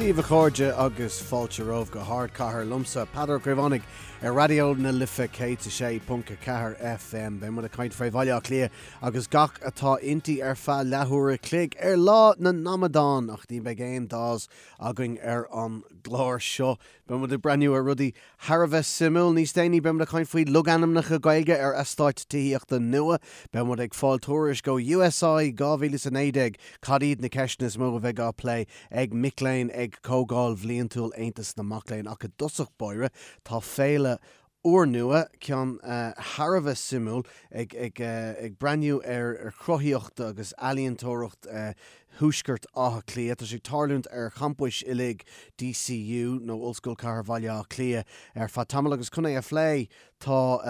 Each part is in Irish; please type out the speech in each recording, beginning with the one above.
Dia daoibh a chairde agus fáilte romhaibh go hArdchathair liomsa, Peadar Ó Caomhánaigh, ar Raidió na Life 106.4 FM. Beidh muid ag caint fé Bhaile Átha Cliath agus gach atá inti ar feadh leathuair a chloig ar Lá na nAmadán, ach ní bheidh aon Dawes againn ar an gclár seo. Beidh muid ag breathnú ar rudaí thar a bheith suimiúil. Níos déanaí beidh muid ag caint faoi logainmneacha Gaeilge ar eastáit tithíochta nua. Beidh muid ag fáil tuairisc ó USI 2019, cad iad na ceisteanna is mó a bheidh á plé ag mic léinn ag Comhdháil Bhliantúil Aontas na Mac Léinn. Ach i dtosach báire, tá féile úrnua, ceann thar a bheith suimiúil, ag ag breathnú ar chruthaíocht agus ealaíontóireacht Thuaisceart Átha Cliath. Tá sé ag tarlúint ar champais uilig DCU, nó Ollscoil Chathair Bhaile Átha Cliath, ar feadh tamaill agus chun é a phlé tá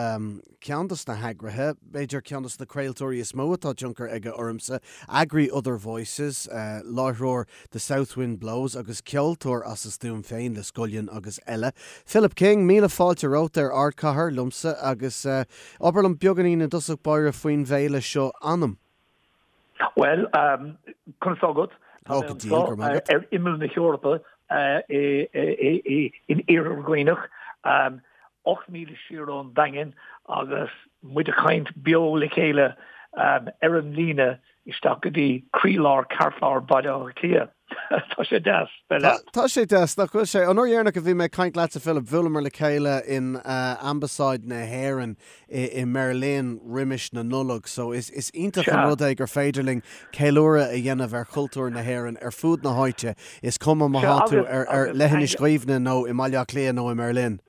ceann dos na heagraithe, b'fhéidir ceann dos na craoltóirí is mó atá tionchar aige ormsa, eagraí Other Voices, láithreoir The South Wind Blows agus ceoltóir as a stuaim féin le Scullion agus eile. Philip King, míle fáilte romhat ar Ardchathair liomsa agus abair liom beagáinín i dtosach báire faoin bhféile seo Anam. Bhuel, conas tá agat? Tá mé anseo ar imeall na hEorpa in Iarthar Dhuibhneach, 8 míle siar ón Daingean agus muid ag caint beo le chéile ar an líne isteach go dtí croílár, ceartlár Bhaile Átha Cliath. Tá sé deas bheith leat. Tá sé deas, nach bhfuil sé? An uair dheireanach a bhí mé ag caint leatsa, Philip, bhuaileamar le chéile in Ambasáid na hÉireann i mBerlin roimis na Nollag, so is iontach an rud é gur féidir linn ceiliúradh a dhéanamh ar chultúr na hÉireann ar fud na háite, is cuma má tá tú ar Leithinis Dhuibhne nó i mBaile Átha Cliath nó i mBerlin.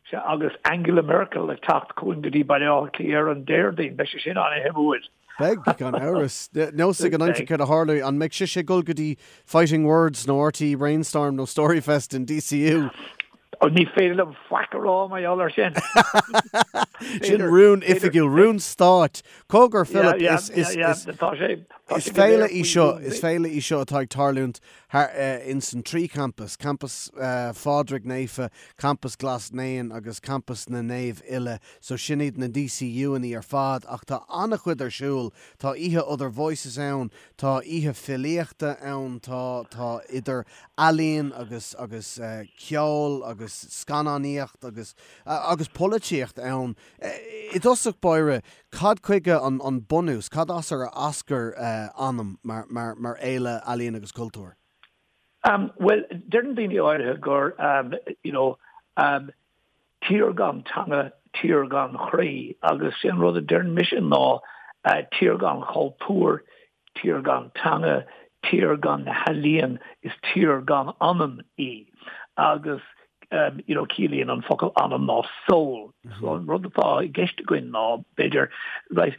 Sea, agus Angela Merkel ag teacht chugainn go dtí Baile Átha Cliath ar an Déardaoin, beidh sé sin an-shuimiúil. Beidh, gan amhras. Nós ag an aimsir céard a tharlóidh. An mbeidh sise ag dul go dtí Fighting Words nó RTÉ Brainstorm nó Storyfest in DCU? Ní féidir liom faic a rá mar gheall air sin. Sin rún oifigiúil, rún stáit. Cogar, Philip, is féile í seo, is féile í seo atá ag tarlúint thar ins an trí champas, Campas Phádraig Naofa, Campas Ghlas Naíon agus Campas na Naomh Uile, so sin iad na DCU-annaí ar fad ach tá an-chuid ar siúl, tá oíche Other Voices ann, tá oíche filíochta ann, tá tá idir ealaín agus agus ceol agus scannánaíocht agus agus polaitíocht ann. I dtosach báire, Cad chuige an bunús, cad as ar eascair Anam mar fhéile ealaíon agus cultúir? Bhuel, deireann daoine áirithe gur, you know, tír gan teanga, tír gan chroí agus sé an rud a deireann mise ná tír gan chultúr, Tír gan teanga, tír gan na healaíon, is tír gan anam í. Agus you know ciallaíonn an focal anam ná soul. So an rud atá i gceist againn ná, b'fhéidir, right,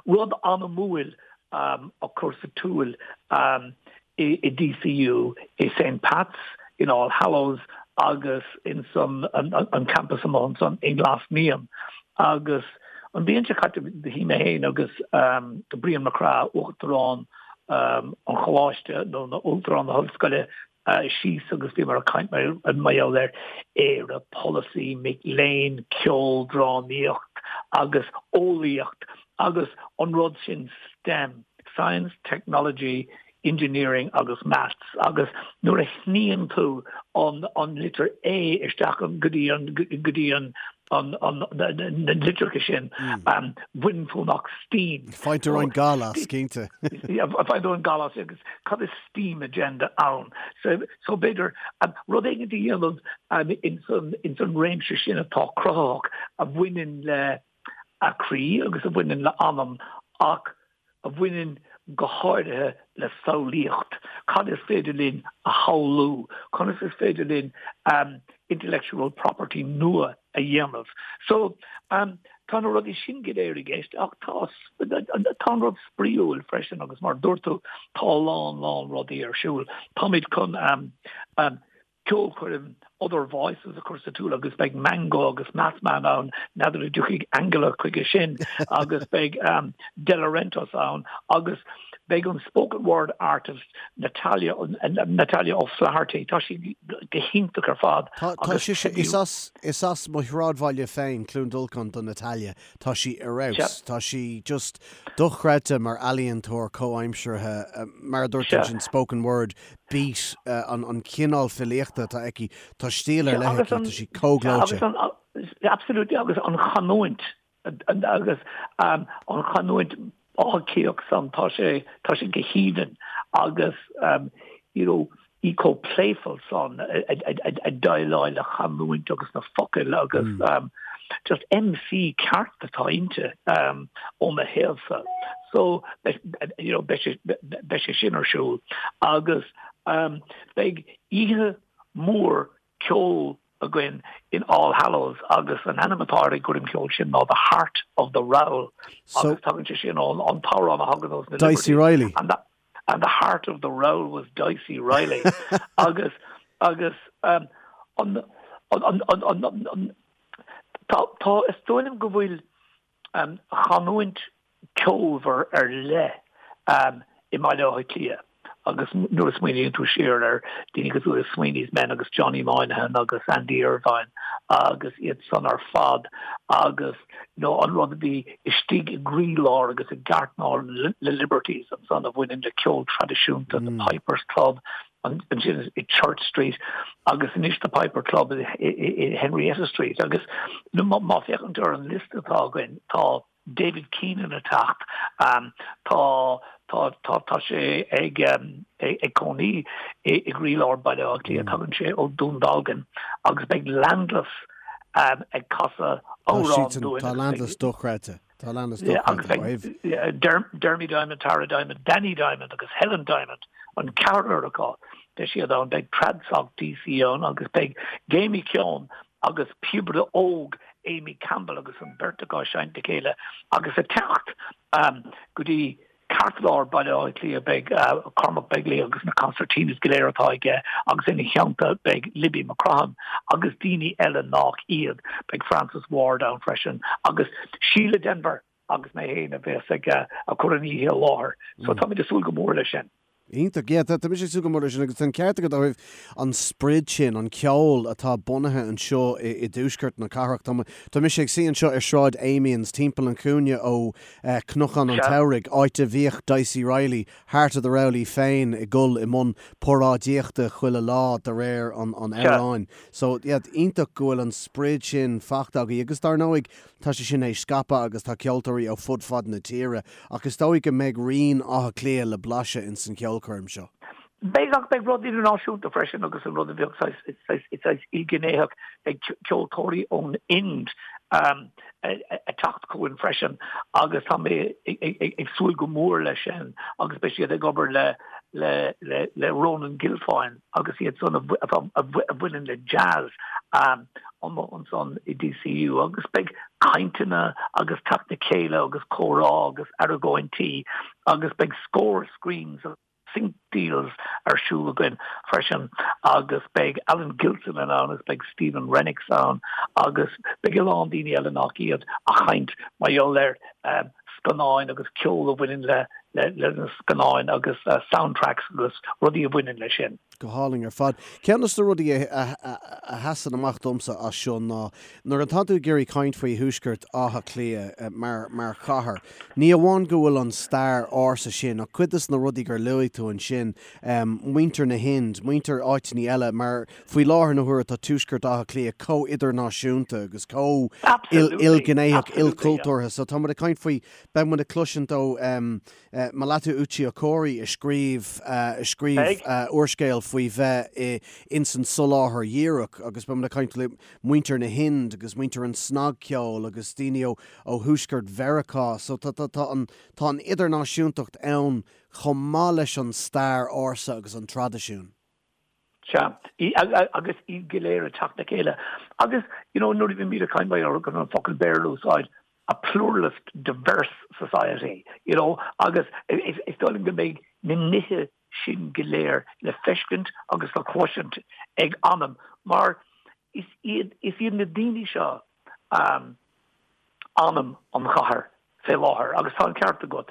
rud anamúil a chur sa tsiúl i DCU, i St Pat's, in All Hallows agus in san an campus amuigh ansan i nGlas Naíon. Agus an bhliain seo caite shuigh mé féin agus Brian Mac Craith, Uachtarán an Choláiste nó Uachtarán na hOllscoile, síos agus bhíomar ag caint mar gheall ar Éire, polasaí, mic léinn, ceol, drámaíocht agus eolaíocht agus an rud sin STEM, Science, Technology, Engineering agus Maths agus nuair a shníonn tú an an litir A isteach go dtí an go dtí an an an na litreacha sin baineann tú amach STEAM. Faigheann tú roinnt gal as, cinnte. Faigheann tú an gal as agus cad is STEAM agenda ann? So so b'fhéidir rud éigin a dhéanamh ins an ins an réimse sin atá cruthaitheach a bhaineann le a croí agus a bhaineann le anam ach a bhaineann go háirithe le samhlaíocht. Cad is féidir linn a shamhlú? Conas is féidir linn intellectual property nua a dhéanamh? So, tá na rudaí sin go léir i gceist ach tá tá an rud spraíúil freisin agus mar a dúirt tú, tá a lán, lán rudaí ar siúl. Táimid chun ceolchoirm. Other Voices a chur sa tsiúl agus beidh Mango agus Mathman ann, n'fheadar an dtiocfaidh Angela chuige sin agus beidh Delorentos ann agus beidh an spoken word artist Natalia Natalia O'Flaherty, tá sí go hiontach ar fad. Tá sise, is as is as mo shráidbhaile féin, Cluain Dolcáin do Natalia, tá sí ar fheabhas, tá sí just dochreidte mar ealaíontóir comhaimseartha, mar a dúirt tú ansin spoken word, beat, an cineál filíochta atá aici, tá stíl ar leith aici, tá sí chomh gleoite. Absolutely, agus an chanúint, agus an chanúint Átha Cliathach san, tá sé, tá sé go haoibhinn agus you know, í chomh playful san ag déileáil le chanúint agus na focail agus just MC ceart atá inti ó mo thaobhsa. So, you know, beidh sé, beidh sé sin ar siúl agus beidh oíche mhór ceoil againn in All Hallows agus an ainm atá ar an gcoirm cheoil sin ná The Heart of the Rowl agus tagann sé sin ón an t-amhrán a thagann ós na Dicey Reilly. And the, and the heart of the rowl was Dicey Reilly agus agus um, an, an, an, an, an, an, tá, tá is dóigh liom go bhfuil um, chanúint ceolmhar ar leith i mBaile Átha Cliath agus nuair a smaoiníonn tú siar ar daoine cosúil le Sweeney's Men agus Johnny Moynihan agus Andy Irvine agus iad san ar fad agus you know an rud a bhí istigh i gcroílár agus i gceartlár na Liberties ansan a bhaineann le ceol traidisiúnta, the Pipers Club ansin i Church Street agus anois the Piper Club i Henrietta Street agus má féachann tú ar an liosta atá againn tá David Keenan ag teacht. Tá tá tá tá sé ag ag cónaí i gcroílár Baile Átha Cliath. Tagann sé ó Dún Dealgan agus beidh Landless ag casadh amhrán dúinn. Tá Landless dochreidte. Tá Landless dochreidte. Agus beidh Dermy Diamond, Tara Diamond, Danny Diamond agus Helen Diamond, an ceathrar acu, beidh siad ann. Beidh Tradsoc DC ann agus beidh Jamie Keown agus píobaire óg Amy Campbell agus an bheirt acu ag seinnt le chéile agus ag teacht go dtí ceartlár Baile Átha Cliath beidh Cormac Begley agus na concertinas go léir atá aige agus ina theannta beidh Libby McCrohan agus daoine eile nach iad. Beidh Francis Ward ann freisin agus Síle Denvir agus mé féin a bheas ag cur an oíche i láthair. So táimid ag súil go mór leis sin. Iontach. Yeah, tá mise ag súil go mór leis sin agus tá an ceart agat ó thaobh an sprid sin, an ceol atá bunaithe anseo i i dtuaisceart na cathrach. Tá tá mise ag suí anseo ar Shráid Amiens, timpeall an chúinne ó Cnocán an tSamhraidh, áit a bhíodh Dicey Reilly, Heart of the Rowl í féin ag dul i mbun paráidíochta chuile lá de réir an an amhráin. So, yeah, iontach go bhfuil an sprid sin fachta agaibh agus dar ndóigh Tá sé sin théis scaipeadh agus tá ceoltóirí ó fud fad na tíre, ach is dóigh go mbeidh rian Átha Cliath le blaiseadh ins an cheolchoirm seo. Beidh, ach beidh rud idirnáisiúnta freisin agus an rud a bheadh saghas, saghas ilghnéitheach, beidh ceoltóirí ón Ind ag teacht chugainn freisin agus tá mé ag súil go mór leis sin agus beidh siad ag obair le le le Ronan Guilfoyle agus iad san a bhaineann le jazz amuigh ansan i DCU agus beidh cainteanna agus teacht le chéile agus comhrá agus argóintí agus beidh scór screens agus sync deals ar siúl againn freisin agus beidh Alan Gilson ann agus beidh Stephen Rennicks ann agus beidh a lán daoine eile nach iad ag caint mar gheall ar scannáin agus ceol a bhaineann le le na scannáin agus soundtracks agus rudaí a bhaineann leis sin. Go hálainn ar fad. Ceann de na rudaí a sheasann amach domsa as seo ná nuair atá tú ag iarraidh caint faoi Thuaisceart Átha Cliath mar mar chathair, ní amháin go bhfuil an stair ársa sin ach cuid de na rudaí gur luaigh tú ansin, muintir na hInd, muintir áiteanna eile mar faoi láthair na huaire tá Tuaisceart Átha Cliath chomh idirnáisiúnta agus chomh ilghnéitheach, ilchultúrtha so tá muid ag caint faoi Beidh muid ag cloisint ó Melatu Uche Okorie a scríobh a scríobh úrscéal faoi bheith ins an soláthar dhíreach agus beidh muid ag caint le muintir na hInd agus muintir an snagcheoil agus daoine ó ó thuaisceart Mheiriceá so tá tá tá an tá an idirnáisiúntacht ann chomh maith leis an stair ársa agus an traidisiún. Sea, agus iad go léir ag teacht le chéile. Agus, you know, nuair a bhímid ag caint mar gheall ar an focal Béarla a úsáid, a pluralist, diverse society, you know, agus is dóigh liom go mbeidh na nithe sin go léir le feiscint agus le cloisint ag Anam, mar. is iad, is iad na daoine seo anam an chathair fé láthair agus tá an ceart agat.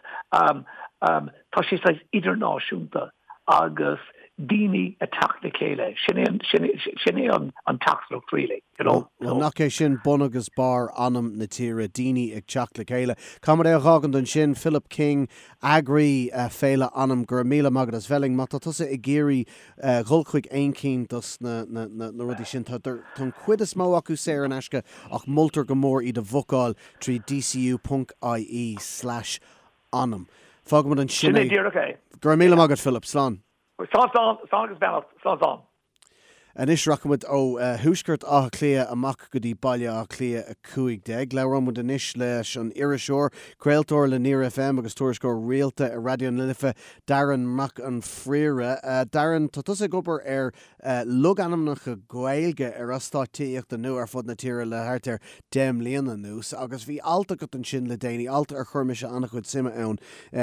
Tá sé saghas idirnáisiúnta agus daoine ag teacht le chéile, sin é an, sin é, sin é an, an teachtaireacht really, you know. Bhuel, nach é sin bun agus barr anam na tíre, daoine ag teacht le chéile. Caithfidh muid é a dh'fhágaint ansin, Philip King, eagraí Féile Anam, go raibh míle maith agat as bheith linn. Má tá tusa ag iarraidh dhul chuig aon cinn dos na rudaí sin, tá an chuid is mó acu saor in aisce ach moltar go mór iad a bhookáil trí dcu ponc ie slash anam. Fágfaimid ansin é. Sin é díreach é. Go raibh míle maith agat Philip. Slán. Slán slán, slán agus beannacht, slán slán. Anois rachaimid ó thuaisceart Átha Cliath amach go dtí Baile Átha Cliath 15. Labhróimid anois leis an iriseoir, craoltóir le Near FM agus tuairisceoir rialta ar Raidió na Life, Darren Mac an Phríora. Darren, tá tusa ag obair ar logainmneacha Gaeilge ar eastáit tithíochta nua ar fud na tíre le thart ar 10 mbliana anuas agus bhí alt agat ansin le déanaí, alt ar chuir mise an-chuid suime ann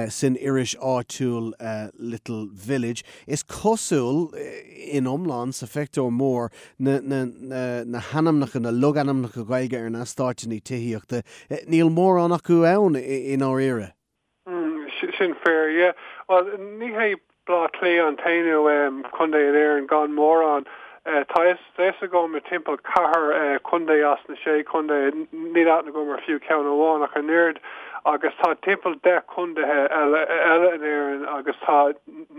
san iris áitiúil Little Village. Is cosúil, in iomlán, sa phictiúr mór, na na hainmneacha, na logainmneacha Gaeilge ar na heastáiteanna tithíochta, níl mórán acu ann i ndáiríre. Sin fíor, yeah. Bhuel, ní hé Baile Átha Cliath an t-aon contae in Éirinn gan mórán. Tá a fhios agam i timpeall ceathair chontae as na sé chontae, níl aithne agam ar fiú ceann amháin ach an oiread, agus tá timpeall 10 contaetha eile in Éirinn agus tá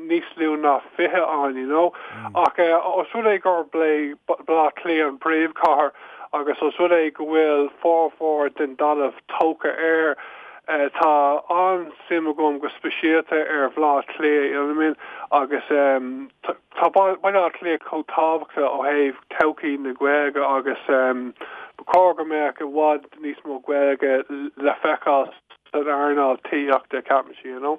níos lú ná 20 ann, you know. Ach os rud é gurb é Baile Átha Cliath an príomhchathair agus os rud é go bhfuil formhór den dtalamh tógtha air, Tá an-suim agam go speisialta ar Bhaile Átha Cliath, you know what I mean, agus tá Baile Átha Cliath chomh tábhachtach ó thaobh todhchaí na Gaeilge agus ba chóir go mbeadh i bhfad níos mó Gaeilge le feiceáil san earnáil tithíochta, ceapaimse, you know.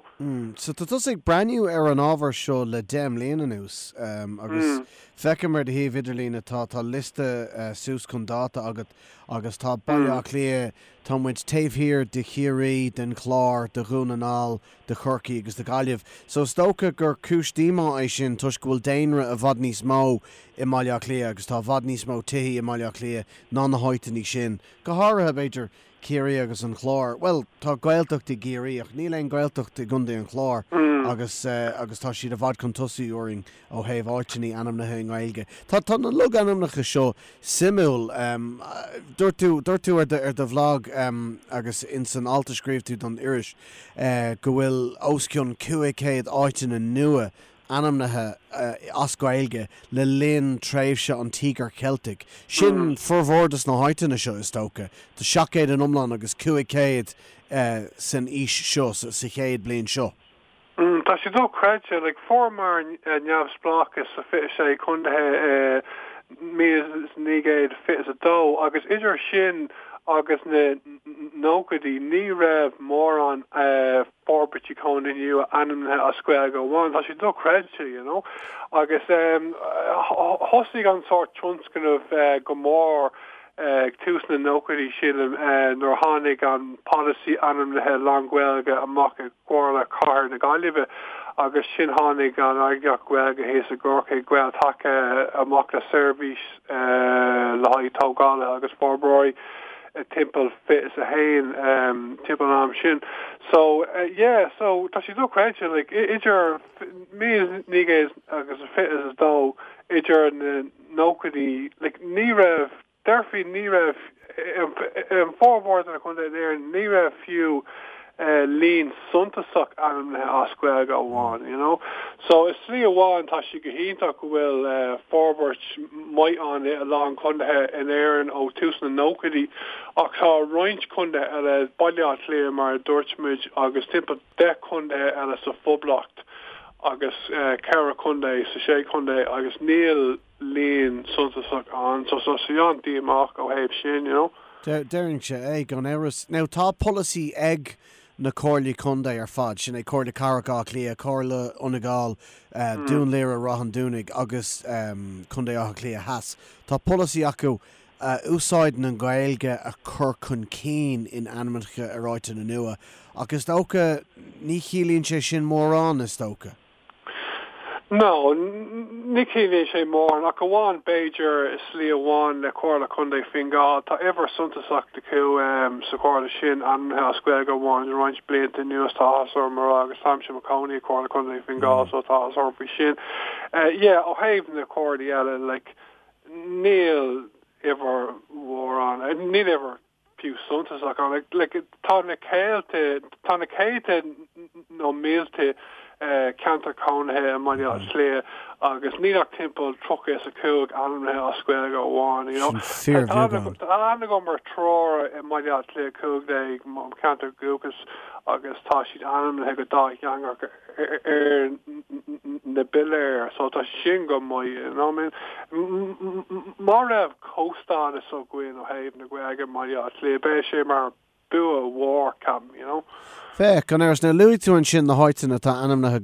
So tá tusa ag breathnú ar an ábhar seo le 10 mbliana anuas agus feicim ar do shuíomh idirlín atá tá liosta suas chun dáta agat agus tá Baile Átha Cliath, Tá muid taobh thiar de Chiarraí, den Chlár, de Dhún na nGall, de Chorcaigh agus de Ghaillimh. So is dócha gur cúis díomá é sin toisc go bhfuil daonra i bhfad níos mó i mBaile Átha Cliath agus tá i bhfad níos mó tithí i mBaile Átha Cliath ná na háiteanna sin. Go háirithe, b'fhéidir, Ciarraí agus an Clár. Bhuel, tá Gaeltacht i gCiarraí ach níl aon Ghaeltacht i gContae an Chláir agus agus tá siad i bhfad chun tosaigh orainn ó thaobh áiteanna ainmnithe i nGaeilge. Tá tá na logainmneacha seo suimiúil. Dúirt tú, dúirt tú ar do, ar do bhlag agus ins an alt a scríobh tú don iris go bhfuil os cionn 500 áiteanna nua ainmnithe as Gaeilge le linn tréimhse an Tíogair Cheiltigh. Sin formhór dos na háiteanna seo, is dócha. Tá 700 in iomlán agus 500 san aois seo, sa chéad bliain seo. Tá sé dochreidte. Like, fuaireamar neamhspleáchas sa 26 contaetha i 1922 agus idir sin agus na nóchaidí ní raibh mórán forbairtí cónaithe nua ainmnithe as Gaeilge amháin. Tá sé dochreidte, you know. Agus thosaigh an sórt tionscnamh go mór ag tús na nóchaidí, sílim, nuair a tháinig an polasaí ainmnithe lán-Ghaeilge amach i gComhairle Chathair na Gaillimhe agus sin tháinig an eagraíocht Ghaeilge thíos i gCorcaigh, Gael-Taca, amach le seirbhís le haghaidh tógálaithe agus forbróirí timpeall 21, timpeall an am sin. So, yeah, so tá sé dochreidte, like, idir 1922 idir na nóchaidí, like, ní raibh, déarfaí ní raibh, in formhór de na contaetha in Éirinn, ní raibh fiú líon suntasach ainmnithe as Gaeilge amháin, you know. So i slí amháin tá sé go hiontach go bhfuil forbairt maith ann i a lán contaetha in Éirinn ó tús na nóchaidí ach tá roinnt contaetha eile, Baile Átha Cliath mar a dúirt muid agus timpeall 10 contaetha eile sa Phoblacht agus 4 chontae sa sé chontae agus níl líon suntasach ann so tá sé an-díomách ó thaobh sin, you know. Déarfainnse é, gan amhras. Now tá polasaí ag na Comhairlí Contae ar fad, sin é Comhairle Cathrach Átha Cliath, Comhairle Fhine Gall, Dún Laoghaire Ráth an Dúnaigh agus Contae Átha Cliath Theas. Tá polasaí acu úsáid na Gaeilge a chur chun cinn in ainmneacha ar áiteanna nua, ach is dócha ní chiallaíonn sé sin mórán, is dócha. No, ní chiallaíonn sé mórán, ach amháin b'fhéidir i slí amháin le Comhairle Contae Fine Gall. Tá uimhir suntasach acu sa chomhairle sin ainmnithe as Gaeilge amháin le roinnt blianta anuas, tá áthas orm a rá, agus táimse i mo chónaí i Comhairle Contae Fine Gall so tá áthas orm faoi sin. Yeah, ó thaobh na comhairlí eile, like, níl uimhir mhór ann, níl uimhir fiú suntasach ann. Like, tá na céadta, tá na céadta nó mílte ceantar cónaithe i mBaile Átha Cliath agus níl ach timpeall 35 ainmnithe as Gaeilge amháin, you know. Sin fíorbheagán. Tá aithne agam ar triúr i mBaile Átha Cliath 15, mo cheantar dúchais, agus tá siad ainmnithe go dátheangach ar na piléir, so tá sin go maith, you know what I mean. Má raibh comhstádas againn ó thaobh na Gaeilge i mBaile Átha Cliath, beidh sé mar bua mhór, ceapaim, you know. Féach, gan amhras, nuair a luaigh tú ansin na háiteanna atá ainmnithe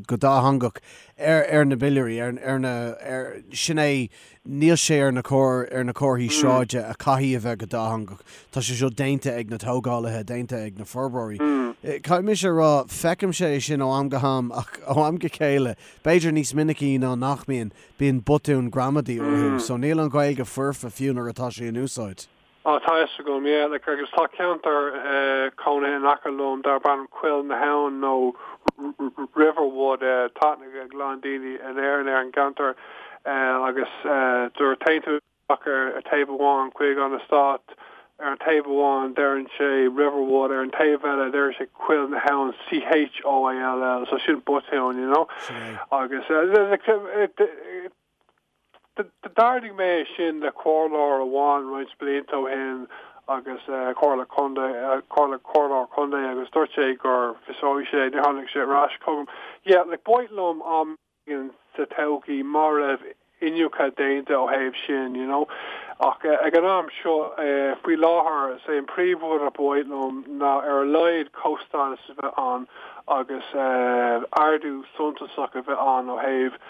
go dátheangach ar na piléirí, ar na, ar, sin é, níl sé ar na ar na comharthaí sráide a caithfidh a bheith go dátheangach. Tá sé seo déanta ag na tógálaithe, déanta ag na forbróirí. Caithfidh mise a rá, feicimse é sin ó am go ham ach ó am go chéile, b'fhéidir níos minicí ná nach mbíonn, bíonn botúin gramadaí orthu. So níl an Ghaeilge foirfe fiú nuair atá sé in úsáid. Á, tá fhios agam, yeah, like, agus tá ceantar cónaithe in aice liom darb ainm Coill na hAbhann nó Riverwood, tá aithne ag a lán daoine in Éirinn ar an gceantar agus nuair a théann tú isteach ar taobh amháin chuig an eastát, ar an taobh amháin deireann sé Riverwood, ar an taobh eile deireann sé Coill na hAbhann, C-H-O-I-L-L, so sin botún, you know, agus like, D'ardaigh mé é sin le comhairleoir amháin roinnt blianta ó shin agus comhairle contae, comhairle, comhairleoir contae agus dúirt sé gur fiosróidh sé, níor tháinig sé ar ais chugam. Yeah, like b'mhaith liom am éigin sa todhchaí má raibh iniúchadh déanta ó thaobh sin, you know. Ach ag an am seo, faoi láthair, is é an príomhrud a ba mhaith liom ná ar a laghad comhstádas a bheith ann agus ardú suntasach a bheith ann ó thaobh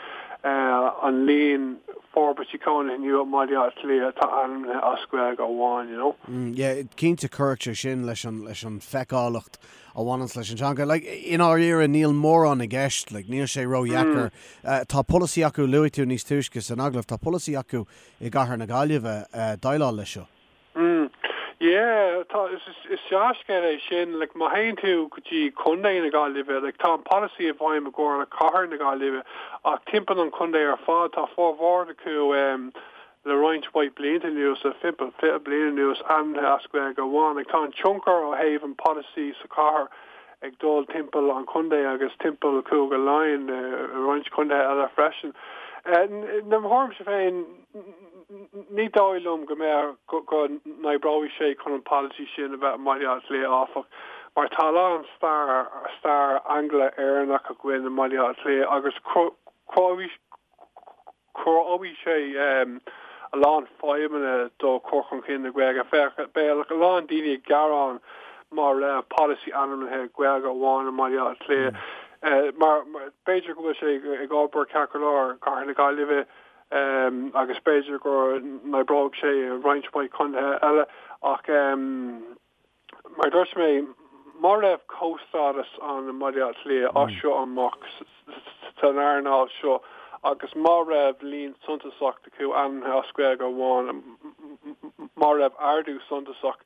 an líon forbairtí cónaithe nua i mBaile Átha Cliath atá ainmnithe as Gaeilge amháin, you know. Yeah, cinnte cuirfidh sé sin leis an, leis an feiceálacht a bhaineanns leis an teanga. Like, i ndáiríre níl mórán i gceist, like, níl sé ródheacair. Tá polasaí acu, luaigh tú níos túisce san agallamh, tá polasaí acu i gcathair na Gaillimhe déileáil leis seo. Mm. Yeah, tá, is, is dea-scéal é sin. Like, má théann tú go dtí Contae na Gaillimhe, like, tá an polasaí i bhfeidhm i gComhairle Cathair na Gaillimhe, ach timpeall an chontae ar fad, tá formhór acu em, le roinnt mhaith blianta anuas, le timpeall 20 bliain anuas, ainmnithe as Gaeilge amháin. Like, tá an tionchar ó thaobh an polasaí sa chathair ag dul timpeall an chontae agus timpeall Chúige Laighean, i roinnt contaetha eile freisin. Eh, i mo thuairimse féin, Ní dóigh liom go mbeadh, go n-oibreoidh sé chun an polasaí sin a bheith i mBaile Átha Cliath, áfach, mar tá a lán stair, stair Angla-Éireannach againn i mBaile Átha Cliath agus cruthóidh sé a lán fadhbanna do chur chun cinn na Gaeilge. Féach, beidh a lán daoine ag gearán má raibh polasaí ainmnithe Gaeilge amháin i mBaile Átha Cliath. Mar b'fhéidir go bhfuil sé ag obair ceart go leor i gCathair na Gaillimhe, agus b'fhéidir go n-oibreoidh sé i roinnt mhaith contaetha eile ach mar a dúirt mé, má raibh comhstádas ann i mBaile Átha Cliath as seo amach san earnáil seo agus má raibh líon suntasach acu ainmnithe as Gaeilge amháin, má raibh ardú suntasach,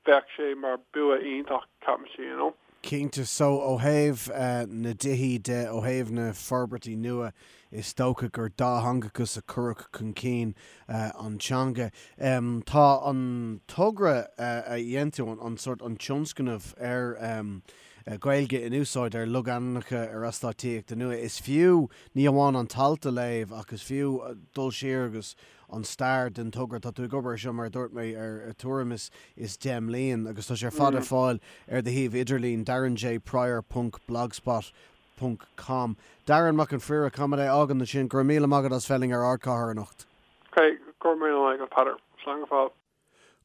bheadh sé mar bua iontach, ceapaimse, you know. Cinnte. So, ó thaobh na dtithí de, ó thaobh na forbairtí nua, is dócha gur dátheangachas a chuirfeadh chun cinn an teanga. Tá an togra a dhein tú, an sórt, an tionscnamh ar Gaeilge in úsáid ar logainmneacha ar eastáit tithíochta nua, is fiú ní amháin an t-alt a léamh ach is fiú dul siar agus an stair den togra. Tá tú ag obair ar seo, mar a dúirt mé, ar tuairim is 10 mbliain agus tá sé ar fad ar fáil ar do shuíomh idirlín, darrenjprior ponc blogspot ponc com. Darren Mac an Phríora, caithfidh mé é a fhágaint ansin. Go raibh míle maith agat as bheith linn ar Ardchathair anocht. Ok, go raibh míle maith agat, Peadar. Slán go fóill.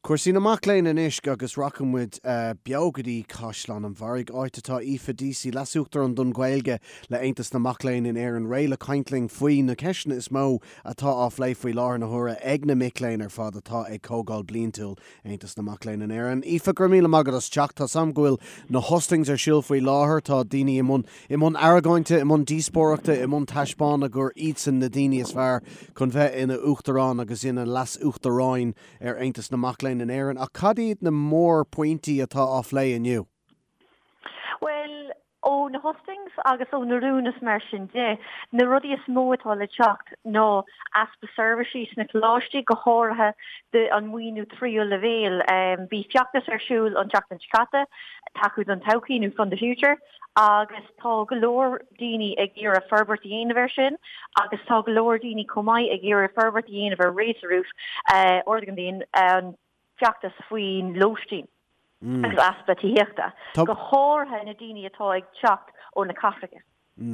Cúrsaí na mac léinn anois agus rachaidh muid beo go dtí Caisleán an Bharraigh, áit atá Aoife Deasy, Leas-Uachtarán don Ghaeilge le Aontas na Mac Léinn in Éirinn, réidh le caint linn faoi na ceisteanna is mó atá á phlé faoi láthair na huaire ag na mic léinn ar fad atá ag Comhdháil Bliantúil Aontas na Mac Léinn in Éirinn. Aoife, go raibh míle maith agat as teacht. Tá's a'm go bhfuil na hustings ar siúl faoi láthair, tá daoine i mbun i mbun argóinte, i mbun díospóireachta, i mbun taispeána gur iadsan na daoine is fearr chun bheith ina Uachtarán agus ina Leas-Uachtaráin ar Aontas na Mac Léinn in Éirinn. Ach cad iad na mórphointí atá á phlé inniu? Bhuel, ó na hustings agus ó na rúin is mar sin de, na rudaí is mó atá le teacht ná easpa seirbhísí sna coláistí, go háirithe an maoiniú tríú leibhéal. Bhí feachtas ar siúl an tseachtain seo caite, Tacú don Todhchaí nó Fund the Future, agus tá go leor daoine ag iarraidh forbairt a dhéanamh air sin agus tá go leor daoine chomh maith ag iarraidh forbairt a dhéanamh ar Raise the Roof, Ardaigh an Díon, an feachtas faoin lóistín agus easpa tithíochta, go háirithe na daoine atá ag teacht ó na cathracha.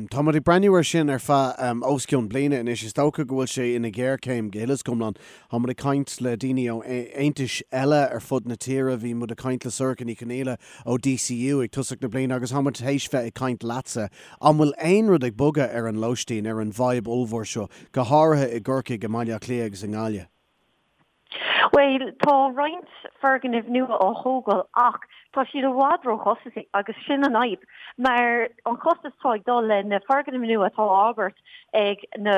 Tá muid ag breathnú air sin ar feadh os cionn bliana anois. Is dócha go bhfuil sé ina ghéarchéim go huile is go hiomlán. Tá muid ag caint le daoine ó aontais eile ar fud na tíre. Bhí muid ag caint le Sorcha Ní Chonaola ó DCU ag tosach na bliana agus tá muid théis bheith ag caint leatsa. An bhfuil aon rud ag bogadh ar an lóistín, ar an bhfadhb ollmhór seo, go háirithe i gCorcaigh, i mBaile Átha Cliath agus i nGaillimh? Bhuel, tá roinnt foirgnimh nua á thógáil ach tá siad i bhfad róchostasaí agus sin an fhadhb mar an costas atá ag dul le na foirgnimh nua atá á fhorbairt ag na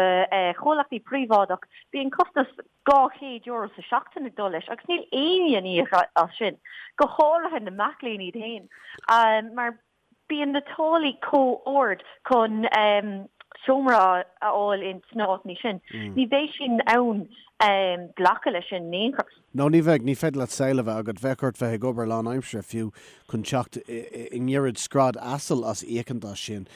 comhlachtaí príobháideach, bíonn costas €200 sa seachtain ag dul leis agus níl éinne in íoc as sin, go háirithe na mac léinn iad féin mar Bíonn na táillí chomh ard chun seomra a fháil ins na háiteanna sin. Ní bheidh siad in ann glacadh leis sin in aon chor. No, ní bheidh. Ní féidir leat saol a bheith agat. Bheadh ort bheith ag obair lánaimseartha fiú chun teacht i ngiorraid scread asail as íocaint as sin.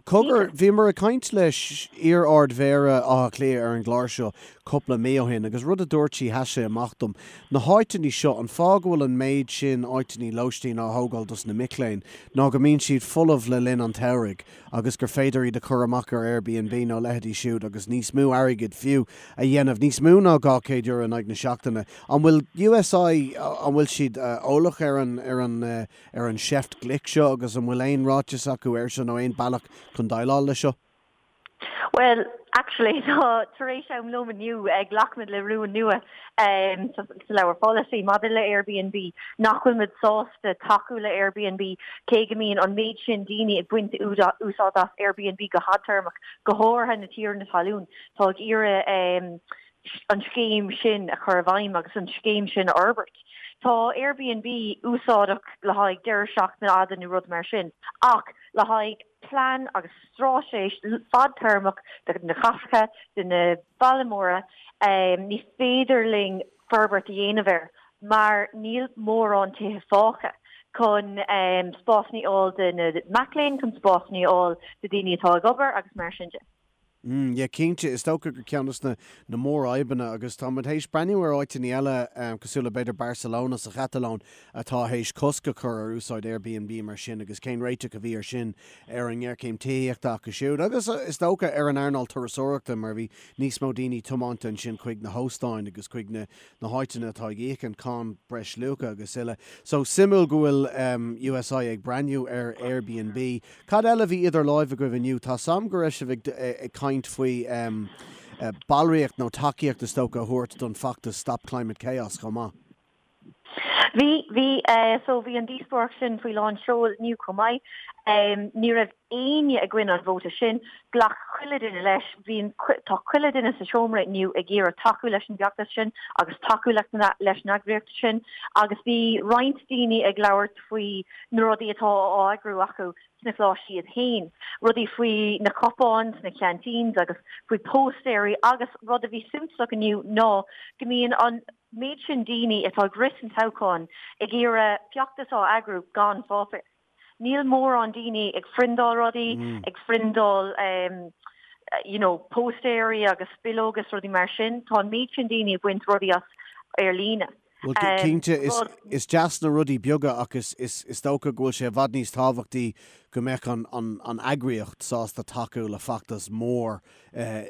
Cogar, bhíomar ag caint le iar-Ard-Mhéara Átha Cliath ar an gclár seo cúpla mí ó shin agus rud a dúirt sí, sheas sé amach dom. Na háiteanna seo, an fáth go bhfuil an méid sin áiteanna lóistín á thógáil dos na mic léinn ná go mbíonn siad folamh le linn an tsamhraidh agus gur féidir iad a chur amach ar Airbnb nó leithéidí siúd agus níos mó airgid fiú a dhéanamh, níos mó ná €200 in aghaidh na seachtaine. An bhfuil USI, an bhfuil siad eolach ar an, ar an, ar an seift ghlic seo agus an bhfuil aon ráiteas acu air seo nó aon bealach chun déileáil leis seo? Bhuel, actually, tá, tar éis am lóin inniu, ghlac muid le rún nua sa leabhar polasaí maidir le Airbnb, nach bhfuil muid sásta tacú le Airbnb, cé go mbíonn an méid sin daoine ag baint úsáid as Airbnb go fadtéarmach, go háirithe na tiarnaí talún, tá ag iarraidh an scéim sin a chur i bhfeidhm agus an scéim sin a fhorbairt. Tá Airbnb úsáideach le haghaidh deireadh seachtaine fhada nó rud mar sin, ach le haghaidh plean agus straitéis fadtéarmach do na cathracha, do na bailte móra, ní féidir linn forbairt a dhéanamh air mar níl mórán tithe fágtha chun spásanna a fháil do na mac léinn, chun spásanna a fháil do daoine atá ag obair agus mar sin de. Mm, yeah, cinnte, is dócha gur ceann de na mórfhadhbanna agus tá muid théis breathnú ar áiteanna eile cosúil le b'fhéidir Barcelona sa Chatalóin atá théis cosc a chur ar úsáid Airbnb mar sin agus cén réiteach a bhí ar sin ar an ngéarchéim tithíochta acu siúd agus is dócha ar an earnáil turasóireachta mar bhí níos mó daoine tiomáinte ansin chuig na hóstáin agus chuig na na háiteanna atá ag íoc an cáin breisluacha agus uile. So, suimiúil go bhfuil USI ag breathnú ar Airbnb. Cad eile a bhí idir láimh agaibh inniu? Tá 's a'm go raibh sibh ag caint faoi ballraíocht nó tacaíocht is dócha a thabhairt don feachtas Stop Climate Chaos chomh maith. Bhí, bhí. So bhí an díospóireacht sin faoi lán seoil inniu chomh maith. Ní raibh éinne i gcoinne an vóta sin. Ghlac chuile duine leis. Bhí an, tá chuile duine sa seomra inniu ag iarraidh tacú leis an bhfeachtas sin agus tacú leis an eagraíocht sin agus bhí roinnt daoine ag labhairt faoi na rudaí atá á eagrú acu sna coláistí iad féin, rudaí faoi na cupáin sna canteens agus faoi póstaeirí agus rud a bhí suntasach inniu ná go mbíonn an méid sin daoine atá ag rith san toghchán ag iarraidh feachtas á eagrú gan pháipéar. Níl mórán daoine ag phriondáil rudaí, ag phriondáil you know póstaeirí agus bileoga is rudaí mar sin. Tá an méid sin daoine ag baint rudaí as ar líne. Bhuel, cinnte, is deas na rudaí beaga ach is dócha go bhfuil sé i bhfad níos tábhachtaí. go mbeadh an, an, an eagraíocht sásta tacú le feachtas mór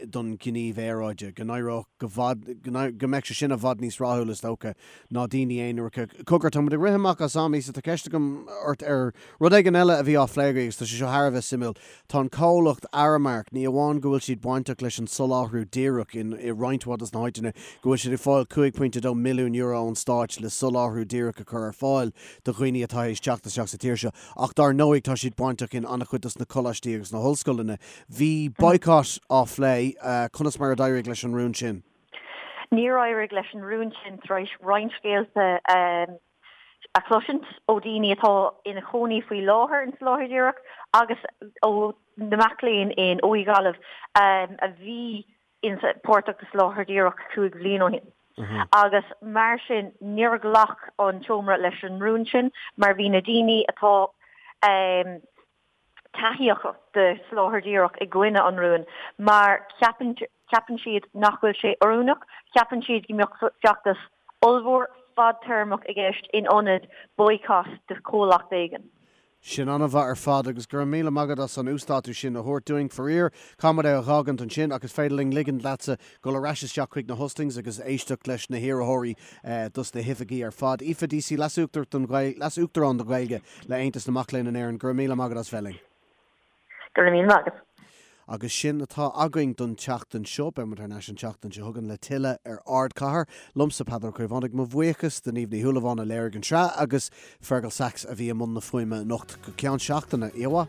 don ghníomh aeráide, go n-éireodh go bhfad, go mbeadh sé sin i bhfad níos rathúla is dócha ná daoine aonaracha. Cogar, tá muid ag rith amach as am, Aoife, tá ceist agam ort ar rud éigin eile a bhí á phlé agaibh agus tá sé seo thar a bheith suimiúil. Tá an comhlacht Aramark, ní amháin go bhfuil siad bainteach leis an soláthar díreach in i roinnt mhaith dos na háiteanna, go bhfuil siad ag fáil €5.2 milliún ón stáit le soláthar díreach a chur ar fáil do dhaoine atá théis teacht isteach sa tír seo, ach dár ndóigh tá siad bainteach in an-chuid dos na coláistí agus na hollscoileanna. Bhí boycott á phlé, conas mar a d'éirigh leis an rún sin? Níor éirigh leis an rún sin tar éis roinnt scéalta a chloisint ó dhaoine atá ina chónaí faoi láthair in Soláthar Díreach agus ó na mac léinn in OÉ Gaillimh a bhí páirteach i Soláthar Díreach 5 bhliain ó shin. Agus mar sin níor ghlac an tseomra leis an rún sin mar bhí na daoine atá taithíoch de Soláthar Díreach i gcoinne an rúin mar ceapann ceapann siad nach bhfuil sé oiriúnach, ceapann siad go mbeadh feachtas ollmhór fadtéarmach i gceist in ionad boycott de chomhlacht éigin. Sin an-mhaith ar fad agus go raibh míle maith agat as an uasdátú sin a thabhairt dúinn. Faraor, caithfidh muid é a dh'fhágaint ansin ach is féidir linn ligint leatsa dul ar ais isteach chuig na hustings agus éisteacht leis na hiarrthóirí dos na hoifigí ar fad. Aoife Deasy, Leas-Uachtarán don Ghaeilge le Aontas na Mac Léinn in Éirinn, go raibh míle maith agat as bheith linn. Go raibh míle maith agat. Agus sin atá againn don tseachtain seo. Beidh muid thar n-ais an tseachtain seo chugainn le tuilleadh ar Ardchathair. Liomsa Peadar Ó Caomhánaigh, mo bhuíochas do Niamh Ní Shúilleabháin a léirigh an tsraith agus Fergal Sachs a bhí i mbun na fuaime anocht. Go ceann seachtaine, oíche mhaith.